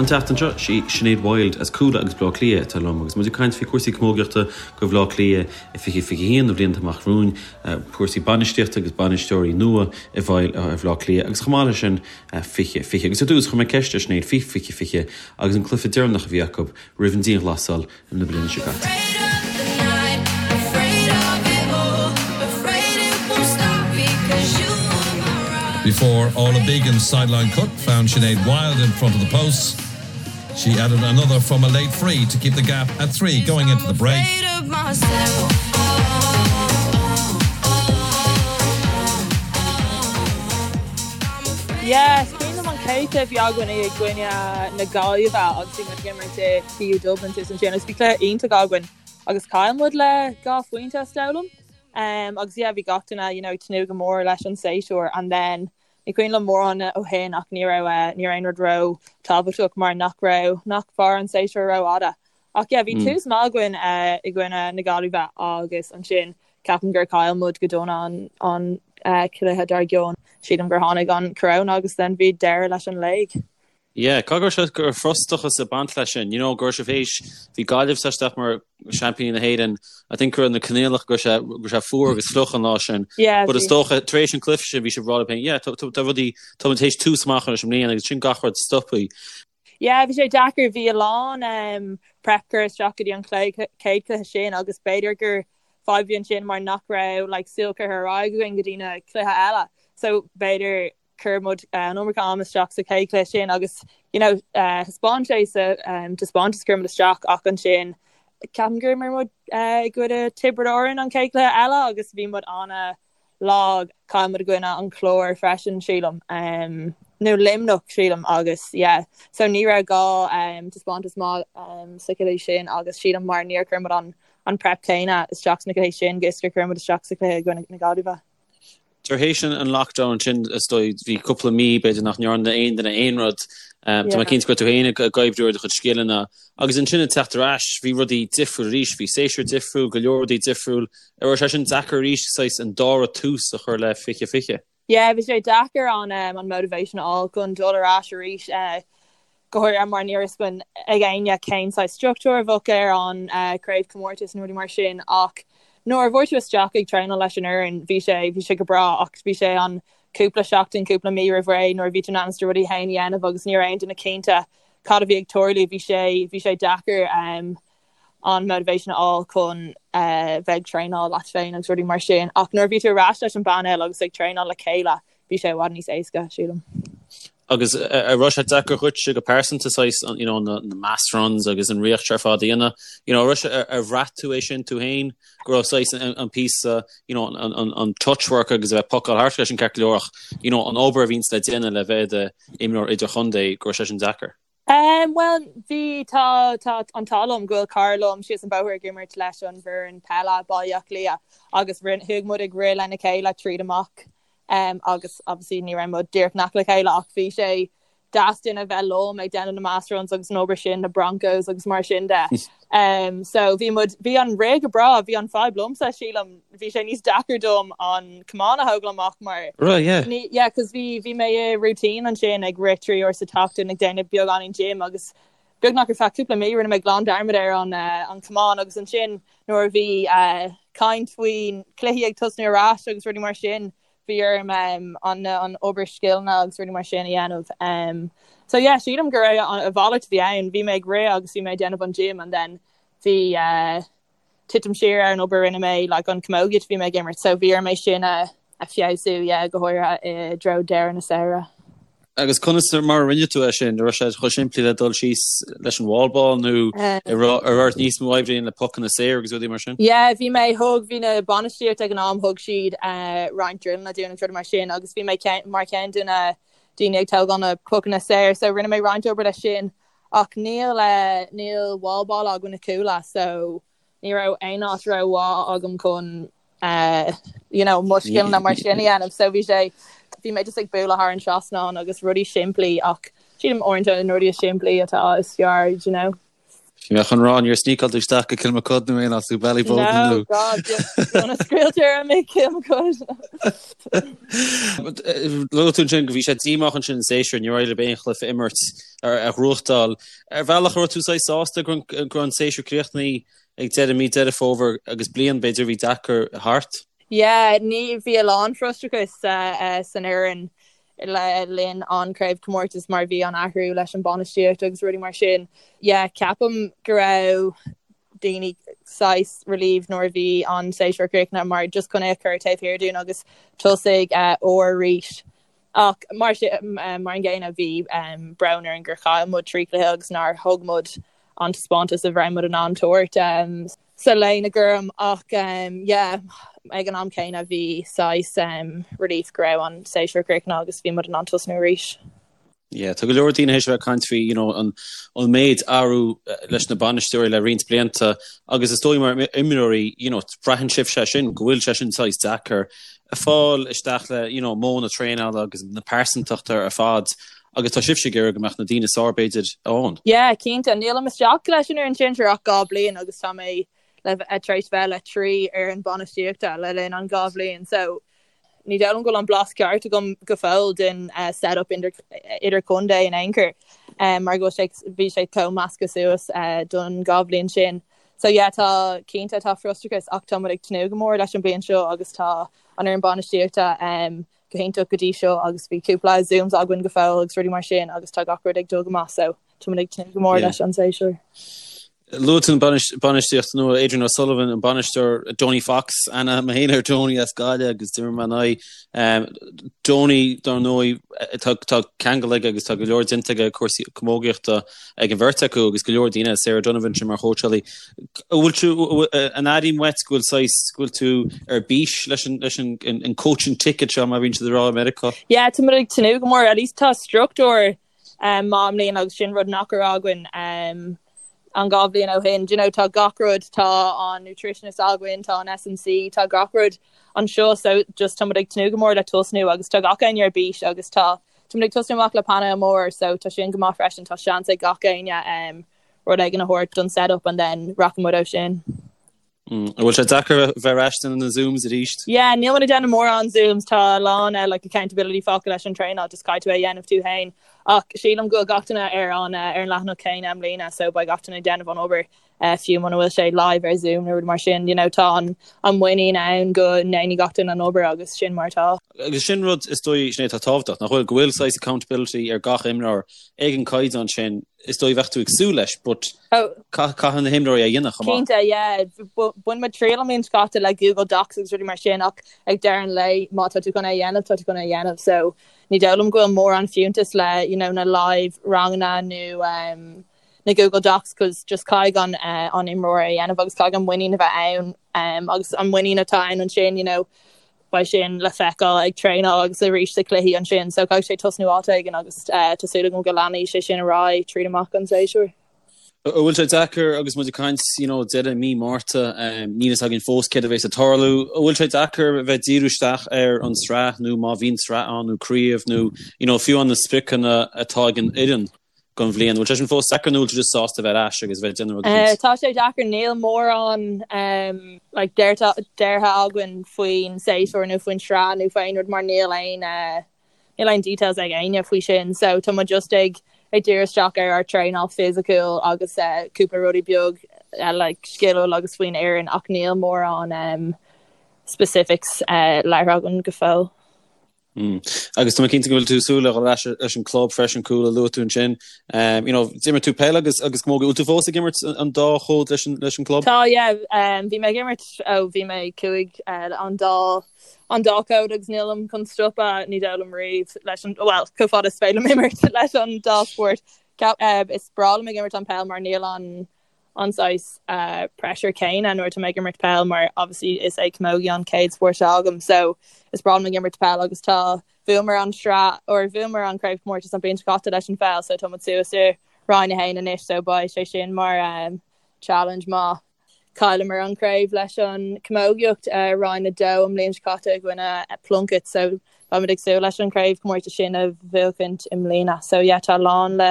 An tseachtain seo, sí Sinéad Wilde as Cuala agus Bleá Cliath atá liom agus muid ag caint faoi chúrsaí camógaíochta do Bhleá Cliath i 2021, na blianta amach romhainn, cúrsaí bainistíochta agus bainisteoirí nua i bhfeighil ar Bhleá Cliath agus chomh maith leis sin 2020. Agus ar dtús, chuir mé ceist ar Sinéad faoi 2020 agus an cluiche deireanach a bhí acu roimh an dianghlasáil na bliana seo caite. Before Orla Began's sideline cut found Sinead Wilde in front of the posts, she added another from a late free to keep the gap at 3 going into the break. Yeah, is cuimhin liom an chéad chluiche a bhí againn i gcoinne na Gaillimhe agus bhí muid ag imirt i TU Dublin thuas ansin agus bhí cluiche iontach againn agus chaill muid le 2 phointe is dóigh liom. Um, agus yeah, bhí gach duine you know, ag tnúth go mór leis an séasúr and then ní cuimhin liom mórán ó shin ach ní raibh eh, ní raibh aon rud ró tábhachtach mar nach raibh nach mhair an séasúr rófhada. Ach yeah, bhí tús maith againn eh, i gcoinne na Gaillimhe agus ansin ceapaim gur chaill muid go dona an, an eh, cluiche dár gcionn. Sílim gur tháinig an corona agus then bhí deireadh leis an léig. Yeah, caithfidh go raibh sé go raibh frustrachas ag baint leis sin, you know, go raibh sibh théis, bhí Gaillimh sa isteach mar seaimpíní na hÉireann, I think go raibh na coinníollacha go raibh sé, go raibh sé fuar agus fliuch an lá sin. Yeah, But is bhí. dócha, tar éis an cluiche sin, bhí sibh ag rá libh féin, yeah, tá, tá, tá rudaí, tá muid théis tús maith a chur leis an mbliain agus sin gach rud stoptha. Yeah, bhí sé deacair, bhí a lán um, prep curtha isteach go dtí an chéad cluiche sin agus b'fhéidir gur fadhb bhí ansin mar nach raibh like, súil curtha ar aghaidh againn go dtí na cluiche eile. So b'fhéidir chuir muid an iomarca am isteach sa chéad chluiche sin agus you know thaispeáin sé sa taispeántas a chuir muid isteach ach ansin ceapaim gur imir muid i gcoinne Tiobraid Árann an chéad chluiche eile agus bhí muid an-lag. Chaill muid i gcoinne an Chláir freisin sílim nó Luimneach sílim agus yeah so ní raibh gá taispeántas maith sa chluiche sin agus sílim mar níor chuir muid an an prep céanna isteach sna cluichí sin is gur chuir muid isteach sa chluiche i gcoinne na Gaillimhe. Tar éis an lockdown sin, is dóigh, bhí cúpla mí, b'fhéidir, nach ndearna aon duine aon rud. Tá mé cinnte go raibh tú féin ag oibriú ar do chuid scileanna. Agus ansin ag teacht ar ais, bhí rudaí difriúil arís, bhí séasúr difriúil, go leor rudaí difriúil. An raibh sé sin deacair arís, saghas an dara tús a chur le 2020? Yeah, bhí sé deacair an an motivation a fháil chun dul ar ais arís. go háirithe mar ní raibh a fhios ag éinne cén saghas struchtúr a bheadh ar an craobhchomórtas nó rudaí mar sin ach nuair a bhí tú isteach ag traenáil leis an fhoireann bhí sé bhí sé go breá ach bhí sé an cúpla seachtain cúpla mí roimh ré nuair a bhí tú in ainm is do rudaí féin a dhéanamh agus ní raibh aon duine cinnte cad a bhí ag tarlú bhí sé bhí sé deacair um, an motivation a fháil chun uh, bheith ag traenáil leat féin agus rudaí mar sin ach nuair a bhí tú ar ais leis an bpainéal agus ag traenáil le chéile bhí sé i bhfad níos éasca sílim. Agus an raibh sé deacair dhuitse go pearsanta saghas you know na mass runs agus an riocht ar fad a dhéanamh you know raibh sé ar bhraith tú é sin tú féin go raibh saghas an an píosa you know an an an touch work agus a bheith ag pocáil thart leis an ceart go leor ach you know an obair a bhíonns le déanamh le bheith i do imreoir idirchontae go raibh sé sin deacair? Um, bhuel bhí tá tá an t-ádh liom go bhfuil cara liom síos an bóthar ag imirt leis an bhfoireann peile Baile Átha Cliath agus rinn chuaigh muid ag rith lena chéile tríd amach um, agus obviously ní raibh muid díreach in aice le chéile ach bhí sé deas duine bheith liom ag déanamh na mass runs agus an obair sin na broncos agus mar sin de. Um, so bhí muid bhí an rith go breá, bhí an fadhb liomsa sílim bhí sé níos deacair dom an camán a thógáil amach mar Right, yeah. Ní, yeah, cos bhí bhí mé i routine ansin ag rith 3 uair sa tseachtain ag déanamh beagáinín gym agus beagnach ar feadh cúpla mí rinne mé glan dearmad ar an uh, an camán agus ansin nuair a bhí uh, caint faoin cluichí ag tosnú ar ais agus rudaí mar sin bhí orm um, an, an obair scileanna agus rudaí mar sin a dhéanamh. Um, so yeah, sílim go raibh an, a mhalairt a bhí ann, bhí mé ag rith agus bhí mé ag déanamh an gym and then bhí uh, titim siar ar an obair a rinne mé like an camógaíocht a bhí mé ag imirt so bhí orm é sin a a feabhsú yeah go háirithe i dtreo deireadh na samhradh. Agus conas mar a rinne tú é sin? An raibh sé chomh simplí le dul síos leis an wall ball nó an raibh ort níos mó oibre a dhéanamh le pocanna saor agus rudaí mar sin? Yeah bhí mé thug bhí na bainistíocht ag an am thug siad uh, roinnt drilleanna dúinn agus rudaí mar sin agus bhí mé mar cheann de na daoine ag tógáil na pocanna saor so rinne mé roinnt obair leis sin Ach níl níl wall ball againn i Cuala so ní raibh aon áit rómhaith agam chun you know mo scileanna mar sin a dhéanamh so bhí sé bhí mé just ag bualadh thar an trasnán agus rudaí simplí ach sílim uaireanta na rudaí is simplí atá is fearr you know. Bhí mé chun rá níor sneakáil tú isteach go Kilmacud nó aon áit nó Ballyboden nó. No, God, gona scaoiltear mé Kilmacud. Luaigh tú ansin go bhí sé díomách ansin an séasúr, níor éirigh libh aon chluiche a imirt a ghnóthachtáil. Ar bhealach an raibh tú saghas sásta go raibh an séasúr críochnaithe ag deireadh mí Deireadh Fómhair agus bliain b'fhéidir a bhí deacair thart? Yeah, ní bhí a lán frustrachas san fhoireann le linn an craobhchomórtas mar bhí an athrú leis an bainistíocht agus rudaí mar sin. Yeah, ceapaim go raibh daoine saghas relieved nuair a bhí an séasúr críochnaithe mar just chun é a chur taobh thiar dúinn agus tosaigh úr arís. Ach mar sin mar an gcéanna bhí brón orainn gur chaill muid 3 chluiche agus nár thug muid an taispeántas a raibh muid in ann tabhairt. sa léine gorm ach yeah ag an am céanna bhí saghas relief go raibh an séasúr críochnaithe agus bhí muid in ann tosnú arís. Yeah, tá go leor daoine théis a bheith ag caint faoi you know, an, an méid athrú leis na bainisteoirí le roinnt blianta agus is dóigh mar imreoirí you know, braitheann sibh sé sin go bhfuil sé sin saghas deacair a fáil isteach le you know, modh na traenála agus na pearsantachta ar fad agus tá sibhse ag iarraidh go mbeadh na daoine is fearr b'fhéidir ann. Yeah, cinnte. Nílim isteach leis an fhoireann sinsir ach 2 bliain agus tá mé le tar éis bheith le 3 fhoireann bainistíochta le linn an 2 bhliain so ní dóigh liom go bhfuil an blas ceart agam go fóill den set up idir chontae in aon chor mar go bhfuil sé bhí sé chomh measctha suas don 2 bhliain sin. So yeah, tá cinnte tá frustrachas ach tá muid ag tnúth go mór leis an bliain seo agus tá an fhoireann bainistíochta go hiontach go dtí seo agus bhí cúpla zooms againn go fóill agus rudaí mar sin agus tá gach rud ag dul go maith so tá muid ag tnúth go mór leis an séasúr. Luaigh tú an bainistíocht nua, Adrian O'Sullivan, an bainisteoir, Donie Fox, aithne agam féin ar Donie as Gaillimh agus d'imir mé ina aghaidh. Donie, dar ndóigh, tá ceangal aige agus tá go leor déanta aige cúrsaí camógaíochta ag an bheirt acu agus go leor daoine, Sarah Donovan sin mar chóitseálaí. An bhfuil tú, an airím uait go bhfuil saghas, go bhfuil tú ar bís leis an, leis an, an coaching ticket seo mar a bhíonn siad ag rá i Meiriceá? Yeah, tá muid ag tnúth go mór, at least tá struchtúr um, maith i mbliana agus sin rud nach raibh againn um, an 2 bhliain ó shin. Do you know, tá gach rud, tá an nutritionist againn, tá an S&C, tá gach rud anseo so just tá muid ag tnúth go mór le tosnú agus tá gach éinne ar bís agus tá Tá muid ag tosnú amach le painéal mór so tá sin go maith freisin, tá seans ag gach éinne um, rud éigin a thabhairt don set-up and then rachaidh muid ó sin. Mm. An bhfuil sé deacair bheith ar ais na Zooms arís? Yeah, níl muid ag déanamh mórán Zooms, tá a lán uh, like accountability fágtha leis an traenáil, just caithfidh tú é a dhéanamh tú féin. Ach sílim go bhfuil gach duine ar an uh, ar an leathanach céanna i mbliana, so beidh gach duine ag déanamh an obair. fiú muna bhfuil sé live ar Zoom nó rud mar sin, you know, tá an an muinín ann go ndéanfaidh gach duine an obair agus sin mar atá. Agus sin rud is dóigh sin é atá tábhachtach, nach bhfuil, go bhfuil saghas accountability ar gach imreoir ag an caighdeán sin, is dóigh bheadh tú ag súil leis, but oh. caithfidh na himreoirí a dhéanamh chomh maith. Cinnte, yeah. Bhain muid triail an bhliain seo caite le Google Docs agus rudaí mar sin ach ag deireadh an lae má tá tú chun é a dhéanamh, tá tú chun é a dhéanamh. So ní dóigh liom go bhfuil mórán fiúntas le you know, na live ranganna nó um, na Google Docs cos just caithfidh an an imreoir é a dhéanamh agus caithfidh an muinín a bheith ann agus an muinín atá ann ansin you know beidh sin le feiceáil ag traenáil agus arís sa cluichí ansin so caithfidh sé tosnú áit éigin agus tá súil agam go leanfaidh sé sin ar aghaidh tríd amach an séasúr. An bhfuil sé deacair agus muid ag caint you know deireadh mí Márta níl a fhios againn fós céard a bheas ag tarlú. An bhfuil sé deacair a bheith díriú isteach ar an sraith nó má bhíonn sraith ann nó craobh nó you know fiú an na spriocanna atá ag an fhoireann don bhliain. Bhfuil sé sin fós deacair nó bhfuil tú just sásta bheith ar ais agus bheith ag déanamh rud éicint? Tá sé deacair, níl mórán like deartha againn faoin séasúr nó faoin sraith nó faoi aon rud mar níl aon níl aon details ag éinne faoi sin so tá muid just ag ag díriú isteach ar ár traenáil fisiciúil agus cúpla rudaí beag like sciliúil agus faoin fhoireann ach níl mórán specifics labhartha againn go fóill. Agus tá mé cinnte go bhfuil tú ag súil le dhul ar ais leis an club freisin, Cuala, luaigh tú ansin. You know, d'imir tú peil agus agus camógaíocht. Bhfuil tú fós ag imirt an dá chód leis an leis an club? Tá, yeah. Bhí mé ag imirt ó bhí mé 5 an dá an dá chód agus nílim chun stopadh, ní dóigh liom riamh leis an, well, chomh fada is féidir liom imirt leis an dá spórt. Is breá liom ag imirt an peil mar níl an an saghas pressure céanna nuair atá mé ag imirt peil mar obviously is é camogie an chéad spórt atá agam so is breá liom ag imirt peil agus tá bhuamar an sraith or bhuamar an craobhchomórtas an bhliain seo caite leis an pheil so tá muid suas i Roinn 1 anois so beidh sé sin mar um, challenge maith. Chailleamar an craobh leis an camógaíocht uh, Roinn 2 an bhliain seo caite i gcoinne Plunkett so beimid ag súil leis an craobhchomórtas sin a bhuachaint i mbliana so yeah tá a lán le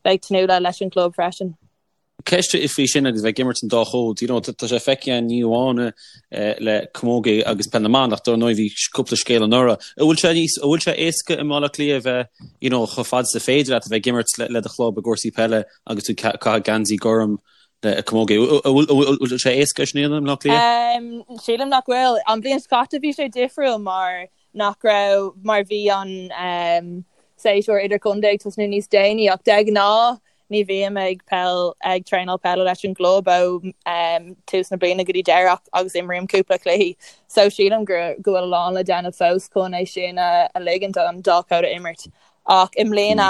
bheith ag tnúth le leis an club freisin. Ceist faoi sin agus bheith ag imirt an dá chód, you know, tá sé feicthe againn ní amháin le camogie agus peil na mban ach dar ndóigh bhí cúpla scéal anuraidh. An bhfuil sé níos, an bhfuil sé éasca i mBaile Átha Cliath a bheith, you know, chomh fada is féidir leat a bheith ag imirt le do chlub i gcúrsaí peile agus tú ag caitheamh geansaí gorm le camogie. An bhfuil sé éasca é sin a dhéanamh i mBaile Átha Cliath? Sílim nach bhfuil. An bhliain seo caite bhí sé difriúil mar nach raibh, mar bhí an séasúr idirchontae ag tosnú níos déanaí ach de ghnáth ní bhím ag peil ag traenáil peile leis an gclub ó tús na bliana go dtí deireadh agus imrím cúpla cluichí so sílim go go bhfuil a lán le déanamh fós chun é sin a ligint an dá chód a imirt. Ach i mbliana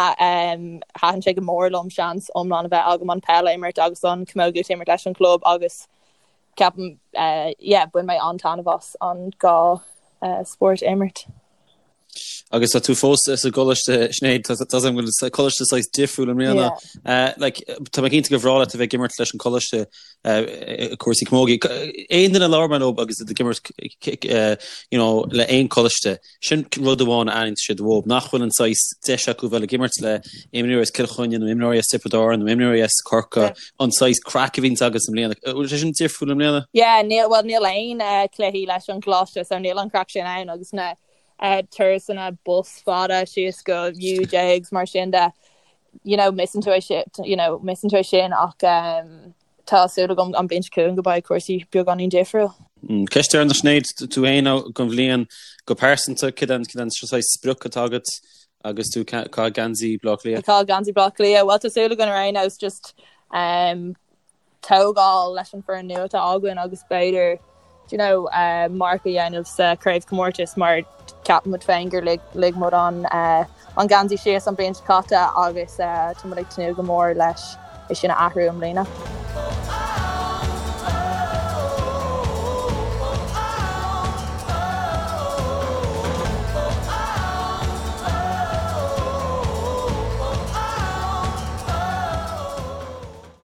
thaitin sé go mór liom seans iomlán a bheith agam an peil a imirt agus an camógaíocht a imirt leis an gclub agus ceapaim yeah bhain mé an-taitneamh as an dhá spórt a imirt. Agus tá tú fós sa gcoláiste, Sinéad, tá a fhios agam go bhfuil coláiste saghas difriúil i mbliana. Like, tá mé cinnte gur bhreá leat a bheith ag imirt leis an gcoláiste i cúrsaí camogie. Aon duine a labhair mé leo agus iad ag imirt you know, le aon choláiste, sin rud amháin a aithníonn siad uathu, nach bhfuil an saghas deis acu bheith ag imirt le imreoirí as Cill Chainnigh nó imreoirí as Tiobraid Árann nó imreoirí as Corcaigh, an saghas craic a bhíonns agaibh i mbliana. Bhfuil sé sin difriúil i mbliana? Yeah, níl, well níl aon cluichí leis an gcoláiste so níl an craic sin ann agus na turasanna bus fada síos go UJ agus mar sin de, you know, miss-ann tú é sin, you know, miss-ann tú é sin ach tá súil agam an bhliain seo chugainn go mbeidh cúrsaí beagáinín difriúil. Ceist deireanach Sinéad, tú féin don bhliain go pearsanta, cad é an saghas sprioc atá agat Agus tú ag caitheamh geansaí Bhaile Átha Cliath? Ag caitheamh geansaí Bhaile Átha Cliath. Bhuel, tá súil againn ar aon nós just um, tógáil leis an foireann nua atá againn agus b'fhéidir do you know, uh, marc a dhéanamh sa craobhchomórtas mar ceapaimid féin gur lig, lig muid an, uh, an geansaí síos an bhliain seo caite agus uh, tá muid ag tnúth go mór leis é sin a athrú i mbliana.